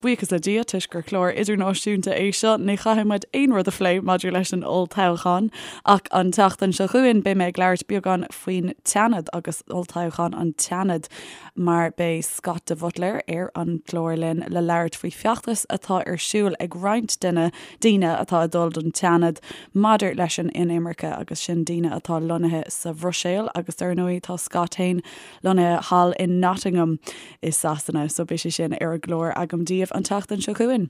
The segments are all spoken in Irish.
Buíochas le Dia, toisc gur clár idirnáisiúnta é seo, ní chaithfidh muid aon rud a phlé maidir leis an olltoghchán. Ach an tseachtain seo chugainn, beidh mé ag labhairt beagán faoin tSeanad agus olltoghchán an tSeanaid, mar beidh Scott de Buitléir ar an gclár linn le labhairt faoi feachtas atá ar siúl ag roinnt de na daoine atá ag dul don tSeanad maidir leis an inimirce, agus sin daoine atá lonnaithe sa Bhruiséil agus dar ndóigh tá Scott féin lonnaithe thall in Nottingham i Sasana, so beidh sé sin ar an gclár agam daoibh an tseachtain seo chugainn.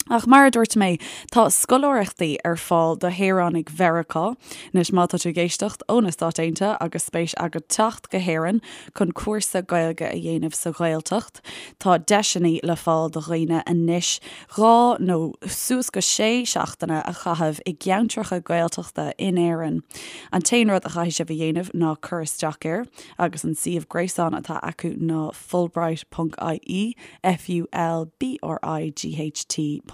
Ach mar a dúirt mé, tá scoláireachtaí ar fáil do shaoránaigh Mheiriceá. Anois má tá tú ag éisteacht ó na Stáit Aontaithe agus spéis agat teacht go hÉirinn chun cúrsa Gaeilge a dhéanamh sa Ghaeltacht, tá deiseanna le fáil do dhaoine anois 2 nó suas go 6 seachtaine a chaitheamh i gceantracha Gaeltachta in Éirinn. An t-aon rud a chaithfidh sibh a dhéanamh ná cur isteach air. agus an suíomh gréasáin atá acu ná fulbright ponc ie, F-U-L-B-R-I-G-H-T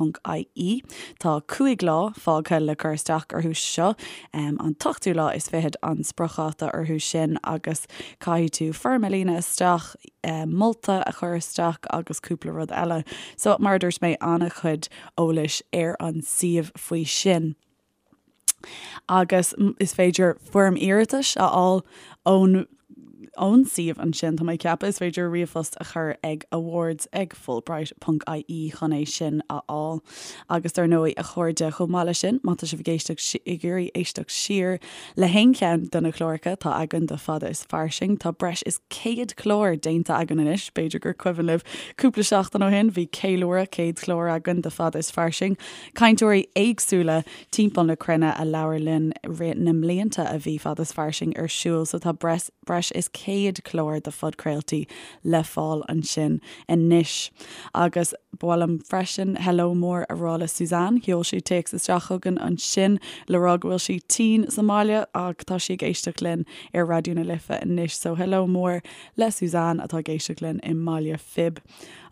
ponc I-E. Tá 5 lá fágtha le cur isteach orthu seo, an t-ochtú lá is fichead an spriocdháta orthu sin agus caithfidh tú foirm a líonadh isteach, molta a chur isteach agus cúpla rud eile. So, mar a dúirt mé, an-chuid eolais ar an suíomh faoi sin. Agus is féidir foirm iarratais a fháil ón ón suíomh ansin, tá mé ag ceapadh. Is féidir ríomhphost a chur ag awards ag fulbright ponc ie chun é sin a fháil. Agus dar ndóigh, a chairde, chomh maith leis sin, má tá sibh ag éisteacht ag iarraidh éisteacht siar le haon cheann de na cláracha atá againn de Fada is Fairsing, tá breis is 100 clár déanta againn anois, b'fhéidir gur cuimhin libh cúpla seachtain ó shin, bhí ceiliúradh 100 clár againn de Fada is Fairsing. Cainteoirí éagsúla timpeall na cruinne a labhair linn i rith na mblianta a bhí Fada is Fairsing ar siúl so tá breis breis is 100 clár de phodchraoltaí le fáil ansin anois. Agus ba mhaith liom freisin hello mór a rá le Suzanne, sheol sí téacs isteach chugainn ansin le rá go bhfuil sí tinn sa mbaile ach tá sí ag éisteacht linn ar Raidió na Life anois so hello mór le Suzanne atá ag éisteacht linn i mBaile Phib.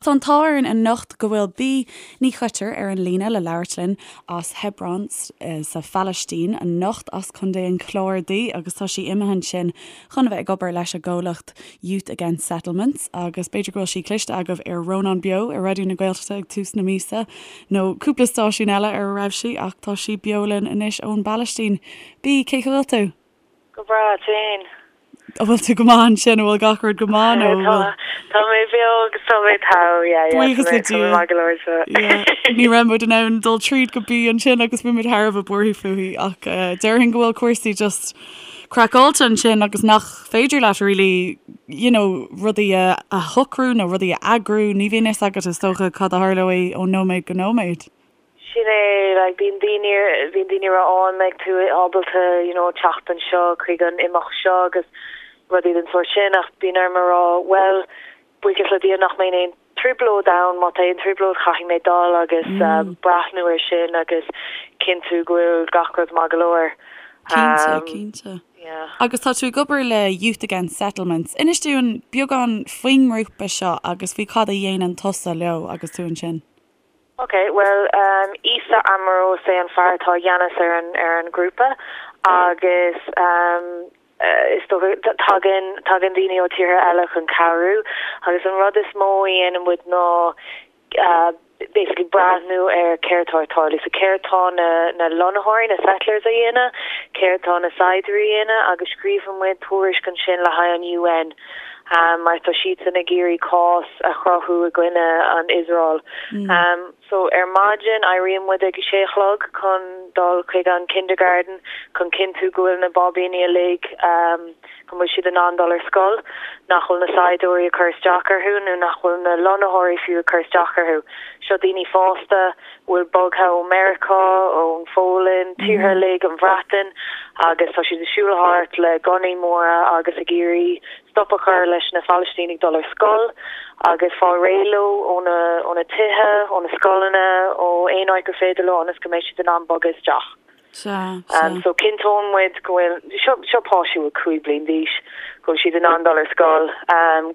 Tá an t-ádh orainn anocht go bhfuil Bea Ní Choitir ar an líne le labhairt linn as Hebron sa Phalaistín anocht, as Contae an Chláir di agus tá sí imithe ansin chun a bheith ag obair leis an gcomhlacht Youth Against Settlements agus b'fhéidir go bhfuil sí cloiste agaibh ar Rónán Beo ar Raidió na Gaeltachta ag tús na míosa nó cúpla stáisiún eile ar a raibh sí ach tá sí beo linn anois ón bPalaistín. Bea, cén chaoi a bhfuil tú? Go breá, tú fhéin. An bhfuil tú go maith ansin? An bhfuil gach rud go maith nó an bhfuil? Tá mé beo agus tá mé togha, yeah, yeah. Buíochas le Dia. Maith go leor so. Yeah. Ní raibh muid in ann dul tríd go Bea ansin agus bhí muid thar a bheith buartha fúithi ach eh, déarfainn go bhfuil cúrsaí just craiceáilte ansin agus nach féidir leat really, you know, rudaí a, a shocrú nó rudaí a eagrú, ní bhíonn fhios agat is dócha cad a tharlóidh ó nóiméad go nóiméad. Sin é, like, bíonn daoine, bíonn daoine ag rá, oh, an mbeidh tú ábalta, you know, teacht anseo chuig an imeacht seo agus rudaí den sórt sin ach bíonn orm a rá, bhuel, buíochas le Dia nach mbeidh aon trioblóid ann, má tá aon trioblóid caithfidh mé dul agus breathnú ar sin agus cinntiú go bhfuil gach rud maith go leor. Cinnte, cinnte. Yeah. Agus tá tú ag obair le Youth Against Settlements. Inis dúinn beagán faoin ngrúpa seo agus faoi cad a dhéanann tusa leo agus tú ansin. Ok, bhuel, Issa Amro is é an fear atá i gceannas ar an ar an ghrúpa agus is dócha tagann tagann daoine ó tíortha eile chun cabhrú agus an rud is mó a dhéanann muid ná basically breathnú ar céard atá ag tarlú. So céard tá na na lonnaitheoirí, na settlers a dhéanamh, céard tá na saighdiúirí a dhéanamh agus scríobhann muid tuairisc ansin le haghaidh an UN. mar tá siadsan ag iarraidh cás a chruthú i gcoinne an Iosrael. So ar maidin éiríonn muid ag a sé a chlog chun dul chuig an kindergarten chun cinntiú go bhfuil na báibíní uilig go bhfuil siad in ann dul ar scoil, nach bhfuil na saighdiúirí ag cur isteach orthu nó nach bhfuil na lonnaitheoirí fiú ag cur isteach orthu. Seo daoine fásta a bhfuil bogtha ó Meiriceá, ón Pholainn, tíortha uilig, an Bhreatain agus tá siad ag siúl thart le gunnaí móra agus ag iarraidh stop a chur leis na Palaistínigh dul ar scoil agus fáil réidh leo ó na ó na tithe, ó na scoileanna, ó aon áit gur féidir leo ionas go mbeidh siad in ann bogadh isteach. Sea, sea. So cinnteoidh muid go bhfuil, seo seo páistí a bhfuil 5 bliain d'aois, go bhfuil siad in ann dul ar scoil,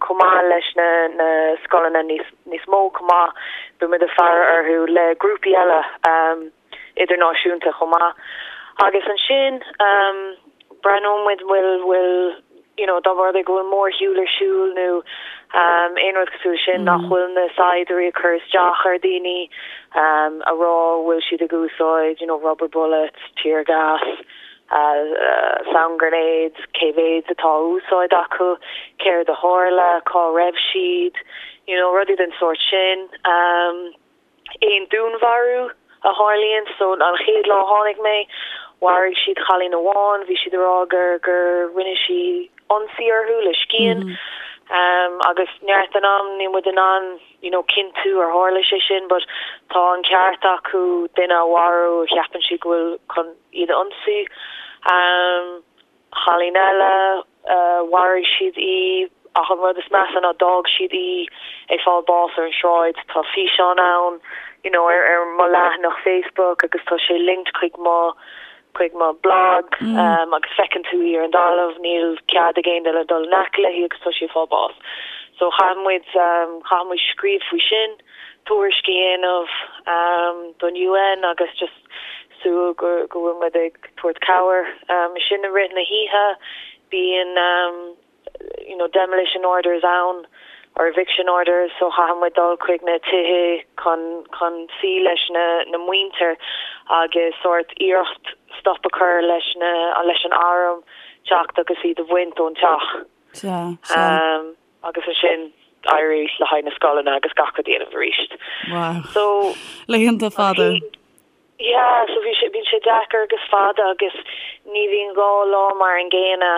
chomh maith leis na na scoileanna níos níos mó chomh maith, beidh muid ag faire orthu le grúpaí eile. idirnáisiúnta chomh maith. Agus ansin breathnóidh muid bhfuil, bhfuil, you know, dá mba rud é go bhfuil mórshiúl ar siúl nó. Aon rud cosúil leis sin, nach bhfuil na saighdiúirí ag cur isteach ar daoine, a rá bhfuil siad ag úsáid you know rubber bullets, tear gas, sound grenades, cé mhéad atá á úsáid acu, céard a tharla, cá raibh siad, you know rudaí den sórt sin. Aon dúnmharú a tharlaíonn. So an chéad lá a tháinig mé, mharaigh siad cailín amháin, bhí siad ag rá gur gur rinne sí ionsaí orthu le scian. Agus neart den am níl muid in ann you know cinntiú ar tharla sé sin but tá an ceart acu duine a mharú a cheapann siad go bhfuil chun iad a ionsaí. Cailín eile, mharaigh siad í ach an rud is measa ná d'fhág siad í ag fáil bás ar an sráid. Tá físeán ann you know ar ar mo leathanach Facebook agus tá sé linked chuig mo chuig mo blog agus feiceann tú í ar an dtalamh, níl cead ag aon duine dul in aice léi agus tá sí ag fáil bás. So chaith muid chaith muid scríobh faoi sin, tuairisc a dhéanamh don UN agus just súil go go bhfuil muid ag tabhairt cabhair. Ansin i rith na hoíche bíonn you know demolition orders ann or eviction orders so chaithfidh muid dul chuig na tithe chun chun suí leis na na muintir agus sórt iarracht stop a chur leis na leis an arm teacht agus iad a bhaint ón teach. Sea, sea. Agus ansin éirí le haghaidh na scoileanna agus gach rud a dhéanamh arís. Wow. So Laethanta fada. Yeah, so bhí sé, bíonn sé deacair agus fada agus ní bhíonn dhá lá mar an gcéanna.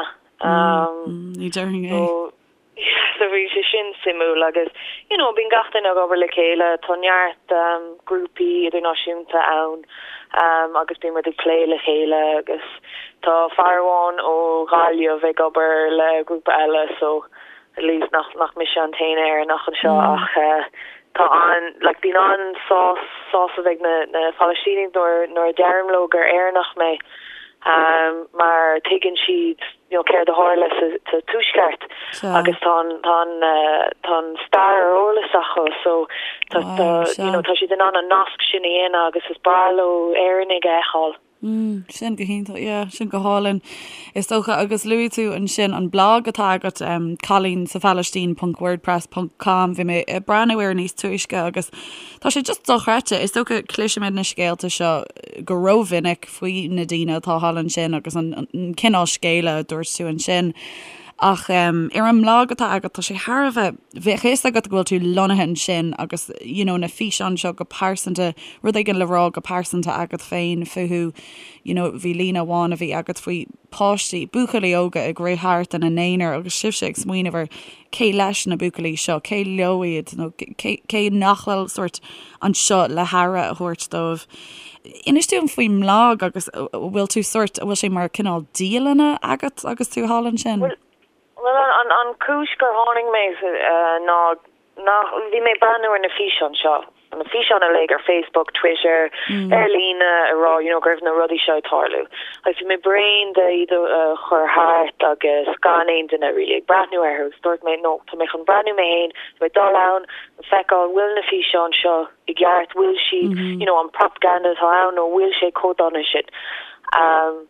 Ní déarfainn é. So, yeah, so bhí sé sin suimiúil agus, you know, bíonn gach duine ag obair le chéile, tá neart grúpaí idirnáisiúnta ann agus bíonn muid ag plé le chéile agus tá fear amháin ó Ghaillimh ag obair le grúpa eile so at least nach nach mise an t-aon Éireannach anseo ach tá an like bíonn an-sás sásamh ag na na Palaistínigh nuair nuair a deirim leo gur Éireannach mé mar tuigeann siad you know céard a tharla sa sa tuaisceart agus tá an tá an tá an stair ar eolas acu so tá tá you know tá siad in ann an nasc sin a dhéanamh agus is breá leo Éireannaigh a fheiceáil. Mm, sin go hiontach, yeah, sin go hálainn. Is dócha, agus luaigh tú ansin an blag atá agat, um, cailín sa Phalaistín ponc wordpress ponc com, bhí mé ag breathnú air níos túisce agus tá sé just dochreidte. Is dócha cloisimid na scéalta seo go rómhinic faoi na daoine atá thall ansin agus an, an cineál scéala a dúirt tú ansin. Ach um, ar an mblag atá agat tá sé thar a bheith, bheadh a fhios agat go bhfuil tú lonnaithe ansin agus you know, na físeáin seo go pearsanta, rud éigin le rá go pearsanta agat féin fúthu, you know, bhí líne amháin a bhí agat faoi páistí, buachaillí óga ag rith thart ina n-aonar agus sibhse ag smaoineamh ar cé leis na buachaillí seo, cé leo iad nó cé, cé nach bhfuil sórt anseo le haire a thabhairt dóibh. Inis dúinn faoin mblag agus an bhfuil tú sórt, an bhfuil sé mar cineál dialanna agat agus tú thall ansin? Bhuel, bhuel an, an chúis gur tháinig mé ná Nach, bhí mé ag breathnú ar na físeáin seo, na físeáin uilig ar Facebook, Twitter, ar líne, ag rá, you know, go raibh na rudaí seo ag tarlú. Agus bhí mé bréan de iad a chur thart agus gan aon duine really ag breathnú orthu agus dúirt mé, no, tá mé chun breathnú mé féin, tá mé dul ann, feiceáil bhfuil na físeáin seo i gceart, bhfuil siad, you know, an propaganda atá ann nó bhfuil sé chomh dona sin. Um.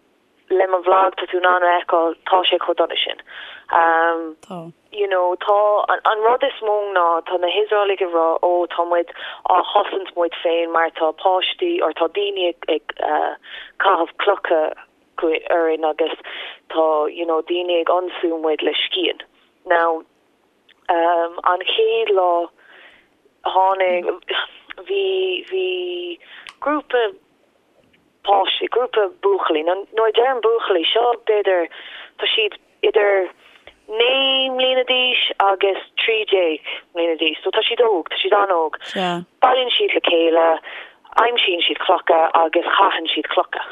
le mo bhlag tá tú in ann a fheiceáil tá sé chomh dona sin. Tá. You know tá an rud is mó ná tá na hIosraelaigh ag rá ó tá muid á chosaint muid féin mar tá páistí or tá daoine ag ag caitheamh clocha orainn agus tá you know daoine ag ionsú muid le scian. Now an chéad lá tháinig bhí bhí grúpa páistí, grúpa buachaillí, nó nuair a deirim buachaillí, seo b'fhéidir, tá siad idir 9 mbliana d'aois agus 13 mbliana d'aois, so tá siad óg, tá siad an-óg. Bailíonn siad le chéile, aimsíonn siad clocha agus caitheann siad clocha.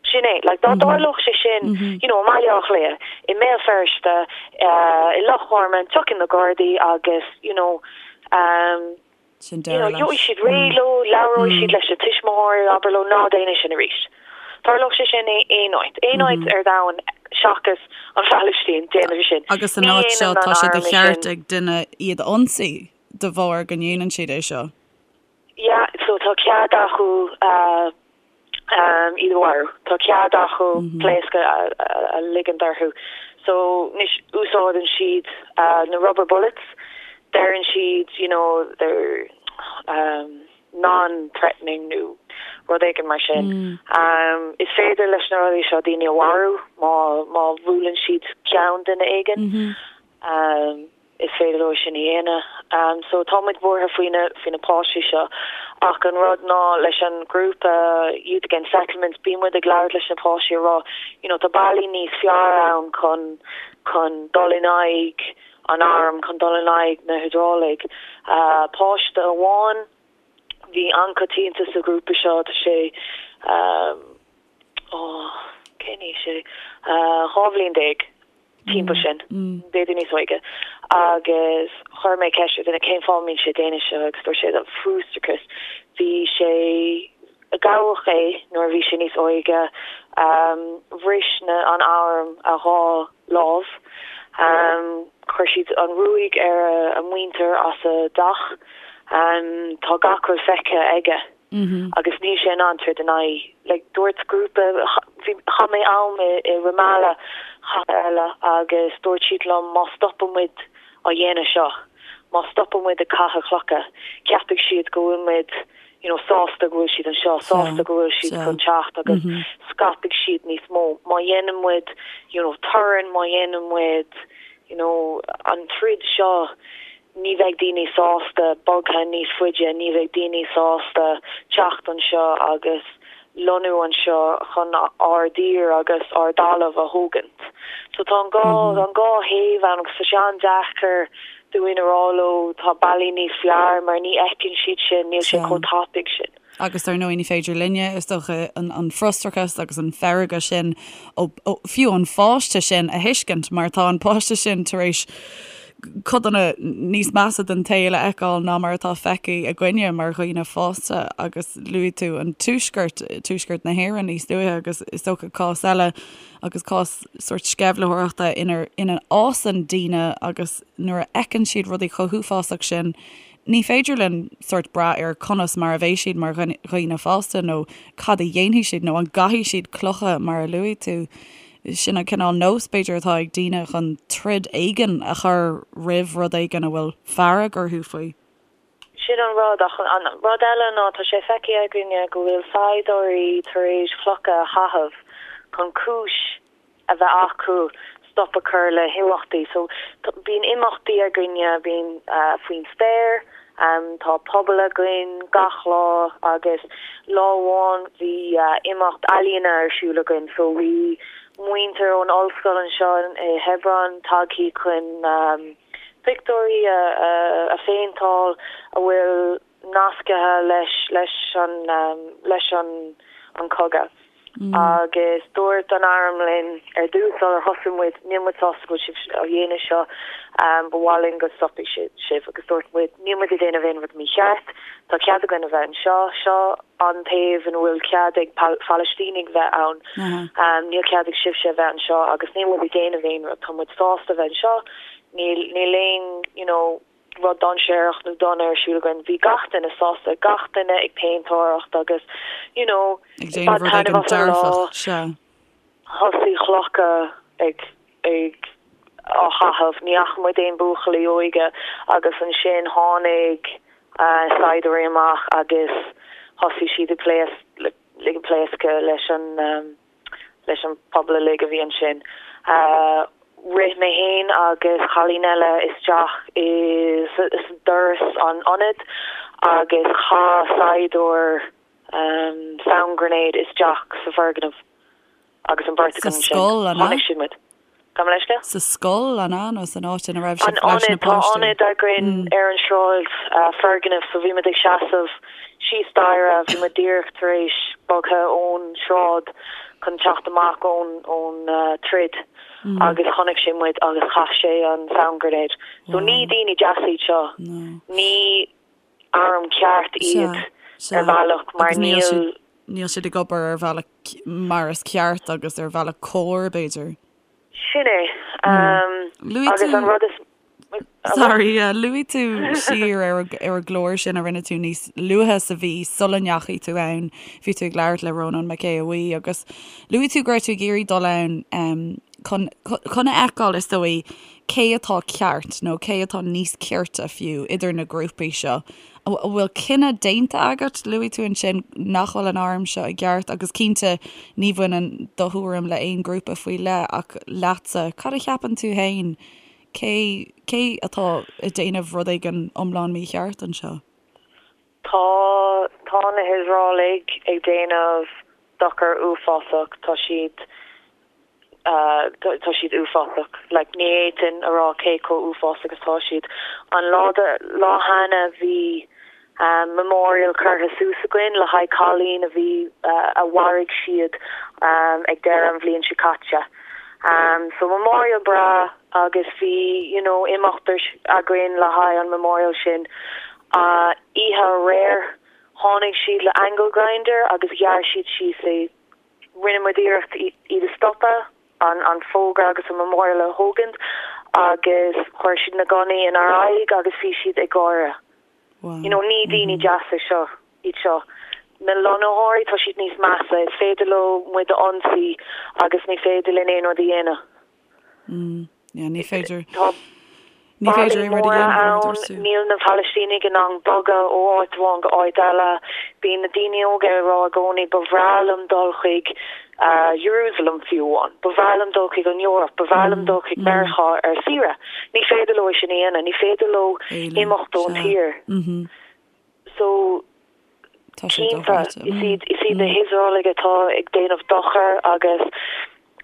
Sin é, like dá dtarlódh sé sin, you know, i mBaile Átha Cliath, i mBéal Feirste, i Loch Garman, tiocfaidh na Gardaí agus, you know, Sin deireadh leis. Gheobhaidh siad réidh leo, labhróidh siad leis na tuismitheoirí, abair leo ná déan é sin arís. Tharlódh sé sin aon áit, aon áit ar domhan seachas an Phalaistín, déanamh sin. Agus san áit seo tá sé de cheart ag duine iad a ionsaí de bharr go ndéanann siad é seo. Yeah, so tá cead acu iad a mharú. Tá cead acu pléasc a ligint orthu. So anois úsáideann siad na rubber bullets, deireann siad you know they're um non-threatening nó rud éigin mar sin. Is féidir leis na rudaí seo daoine a mharú má má bhuaileann siad ceann duine éigin. Is féidir leo sin a dhéanamh. So tá muid buartha faoi na faoi na páistí seo. Ach an rud ná leis an ghrúpa Youth Against Settlements bíonn muid ag labhairt leis na páistí a rá you know tá bealaí níos fearr ann chun chun dul in aghaidh an airm, chun dul in aghaidh na hIosraelaigh. Páiste amháin bhí an-choitianta sa ghrúpa seo tá sé ó cén aois é? 12 bhliain timpeall sin, b'fhéidir níos óige, agus chuir mé ceist ar duine cén fáth a mbíonn sé ag déanamh seo agus dúirt sé frustrachas. Bhí sé, gabhadh é nuair a bhí sé níos óige, bhris na, an arm a dhá lámh, chuir siad an ruaig ar a muintir as a dteach, tá gach rud feicthe aige. agus níl sé in ann troid in aghaidh, like, dúirt grúpa, bhí, chaith mé am i, i Ramallah chathair eile agus dúirt siad liom má stopann muid á dhéanamh seo, má stopann muid ag caitheamh clocha, ceapfaidh siad go bhfuil muid, you know, sásta go bhfuil siad anseo, sásta go bhfuil siad chun teacht agus scaipfidh siad níos mó. Má dhéanann muid, you know, torann, má dhéanann muid, you know, an troid seo, Ní bheidh daoine sásta bogadh níos faide, ní bheidh daoine sásta teacht anseo agus lonnú anseo chun ár dtír agus ár dtalamh a thógaint. So tá an dhá, an dhá thaobh ann agus tá sé an-deacair dúinn a rá leo tá bealaí níos fearr mar ní fheiceann siad sin, níl sé chomh tapaidh sin. Agus dar ndóigh ní féidir linne, is dócha, an frustrachas agus an fearg sin, ó, fiú an pháiste sin a thuiscint mar tá an páiste sin tar éis codanna níos measa den tsaol a fheiceáil ná mar atá feicthe againne mar dhaoine fásta agus luaigh tú an tuaisceart, tuaisceart na hÉireann níos luaithe agus is dócha cás eile agus cás sórt sceimhlitheoireachta inar, ina fhásann daoine agus nuair a fheiceann siad rudaí chomh huafásach sin Ní féidir linn sórt brath ar conas mar a bheidh siad mar dhaoine fásta nó cad a dhéanfaidh siad nó an gcaithfidh siad clocha mar a luaigh tú. Sin an cineál nós b'fhéidir atá ag daoine chun troid éigin a chur roimh rud éigin a bhfuil fearg orthu faoi. Sin an rud, ach an rud eile ná tá sé feicthe againne go bhfuil saighdiúirí tar éis clocha a chaitheamh chun cúis a bheith acu stop a chur le himeachtaí. So bíonn imeachtaí againne, bíonn faoin spéir, tá pobal againn gach lá agus lá amháin bhí imeacht ealaíona ar siúl againn so bhí muintir ón ollscoil anseo i Hebron tagthaí chun pictiúirí a phéinteáil a bhfuil nasctha leis leis an leis an an cogadh. Agus dúirt an arm linn ar dtús sular thosaigh muid, níl muid sásta go bhfuil sibh á dhéanamh seo, ba mhaith linn go stopfaidh sibh. Agus dúirt muid, níl muid ag déanamh aon rud mícheart, tá cead againn a bheith anseo, seo an taobh ina bhfuil cead ag Palaistínigh bheith ann, níl cead ag sibhse a bheith anseo agus níl muid ag déanamh aon rud, tá muid sásta a bheith anseo, níl níl aon you know, rud dainséarach nó dona ar siúl againn. Bhí gach duine sásta, gach duine ag péintéireacht agus you know ag déanamh rud éigin dearfach, sea. Thosaigh clocha ag ag á chaitheamh, ní fhaca muid aon buachaillí óige agus ansin tháinig saighdiúirí amach agus thosaigh siad ag pléas ag pléascadh leis an leis an pobal uilig a bhí ansin. Rith mé fhéin agus cailín eile isteach i doras an ionaid agus chaith saighdiúir sound grenade isteach sa bhfoirgneamh agus an bheirt againn ansin. Sa scoil, an ea? Chonaic siad muid. Gabh mo leithscéal? Sa scoil, an ea, nó san áit ina raibh sibh leis na páistí? Tá ionad againn ar an sráid, foirgneamh, so bhí muid ag seasamh síos staighre, bhí muid díreach tar éis bogtha ón sráid chun teacht amach ón ón troid agus chonaic sé muid agus chaith sé an sound grenade. So ní daoine deasa iad seo, ní arm ceart iad ar bhealach mar níl. Níl siad ag obair ar bhealach mar is ceart agus ar bhealach cóir, b'fhéidir. Sin é. Agus an rud is. Sorry, luaigh tú siar ar an gclár sin a rinne tú níos luaithe sa mhí sula ndeachaigh tú ann. Bhí tú ag labhairt le Rónán Mac Aodha Bhuí agus luaigh tú go raibh tú ag iarraidh dul ann. Chun chun a fheiceáil, is dóigh, cé atá ceart nó cé atá níos cirte fiú idir na grúpaí seo. An bhfuil cinneadh déanta agat? Luaigh tú ansin nach bhfuil an arm seo i gceart agus cinnte ní bhaineann do thuairim le aon ghrúpa faoi leith ach leatsa, cad a cheapann tú féin? Cé cé atá ag déanamh rud éigin iomlán mícheart anseo? Tá tá na hIosraelaigh ag déanamh dochar uafásach, tá siad tá siad uafásach. Like ní fhéadfainn a rá cé chomh uafásach is atá siad. An lá de lá cheana bhí memorial curtha suas againn le haghaidh cailín a bhí a mharaigh siad ag deireadh an bhliain seo caite. So memorial breá agus bhí you know imeacht againn le haghaidh an memorial sin. Oíche aréir tháinig siad le angle grinder agus ghearr siad síos é. Rinne muid iarracht iad a stopadh, an fógra agus an memorial a thógaint agus chuir siad na gunnaí inár aghaidh agus bhí siad ag gáire. You know, ní daoine deasa seo, iad seo. Na lonnaitheoirí, tá siad níos measa. Is féidir leo muid a ionsaí agus ní féidir linn aon rud a dhéanamh. Yeah, ní féidir. Tá Ní féidir ballaí aon rud a móra dhéanamh, mar a ann, dúirt tú. níl na Palaistínigh in ann bogadh ó áit amháin go áit eile. Bíonn na daoine óga ag rá i gcónaí ba bhreá liom dul chuig Jerusalem fiú amháin, ba bhreá liom dul chuig an Eoraip, ba bhreá liom dul chuig Meiriceá ar saoire. Ní féidir leo é sin a dhéanamh, ní féidir leo Éalú, imeacht ón sea. tír. So, Tá sé Cinnte, dochreidte. is iad, is iad na hIosraelaigh atá ag déanamh dochar agus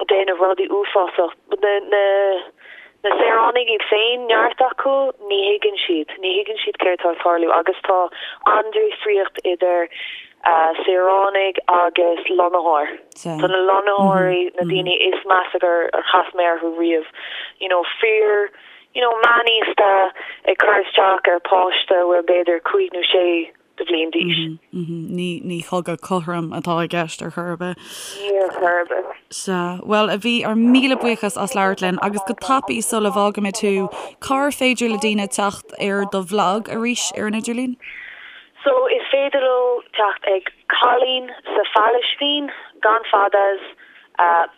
déanamh rudaí uafásach. Na, na, na saoránaigh iad féin, neart acu, ní thuigeann siad, ní thuigeann siad céard atá ag tarlú agus tá an-difríocht idir saoránaigh agus lonnaitheoir. Tá na lonnaitheoirí, na daoine is measa gur chas mé orthu riamh, you know, fir, you know, meánaosta ag cur isteach ar pháiste a bhfuil b'fhéidir cúig nó sé de bhliain d'aois. Ní, ní cogadh cothrom atá i gceist ar chor ar bith. Ní ar chor ar bith. Sea. Bhuel, a Bhí, ár míle buíochas as labhairt linn agus go tapaidh sula bhfágaimid thú, cár féidir le daoine teacht ar do bhlag arís ar an idirlíon? So, is féidir leo teacht ag Cailín sa Phalaistín, gan fadas,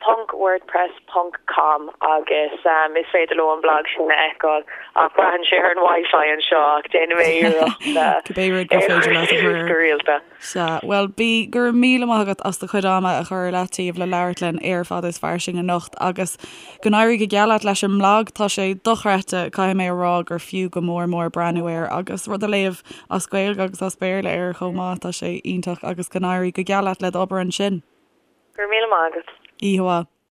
ponc wordpress ponc com agus is féidir leo an blag sin a fheiceáil ach braitheann sé ar an wifi anseo ach déanfaidh mé iarracht Cibé rud gur é a féidir chur leat a chur suas air. go rialta. Sea, bhuel Bea, go raibh míle maith agat as do chuid ama a chur ar leataobh le labhairt linn ar Fada is Fairsing anocht agus go n-éirí go geal leat leis an mblag, tá sé dochreidte, caithfidh mé a rá gur fiú go mór mór breathnú air agus rud a léamh as Gaeilge agus as Béarla air chomh maith, tá sé iontach agus go n-éirí go geal leat le d'obair ansin. Go raibh míle maith agat. Oíche mhaith.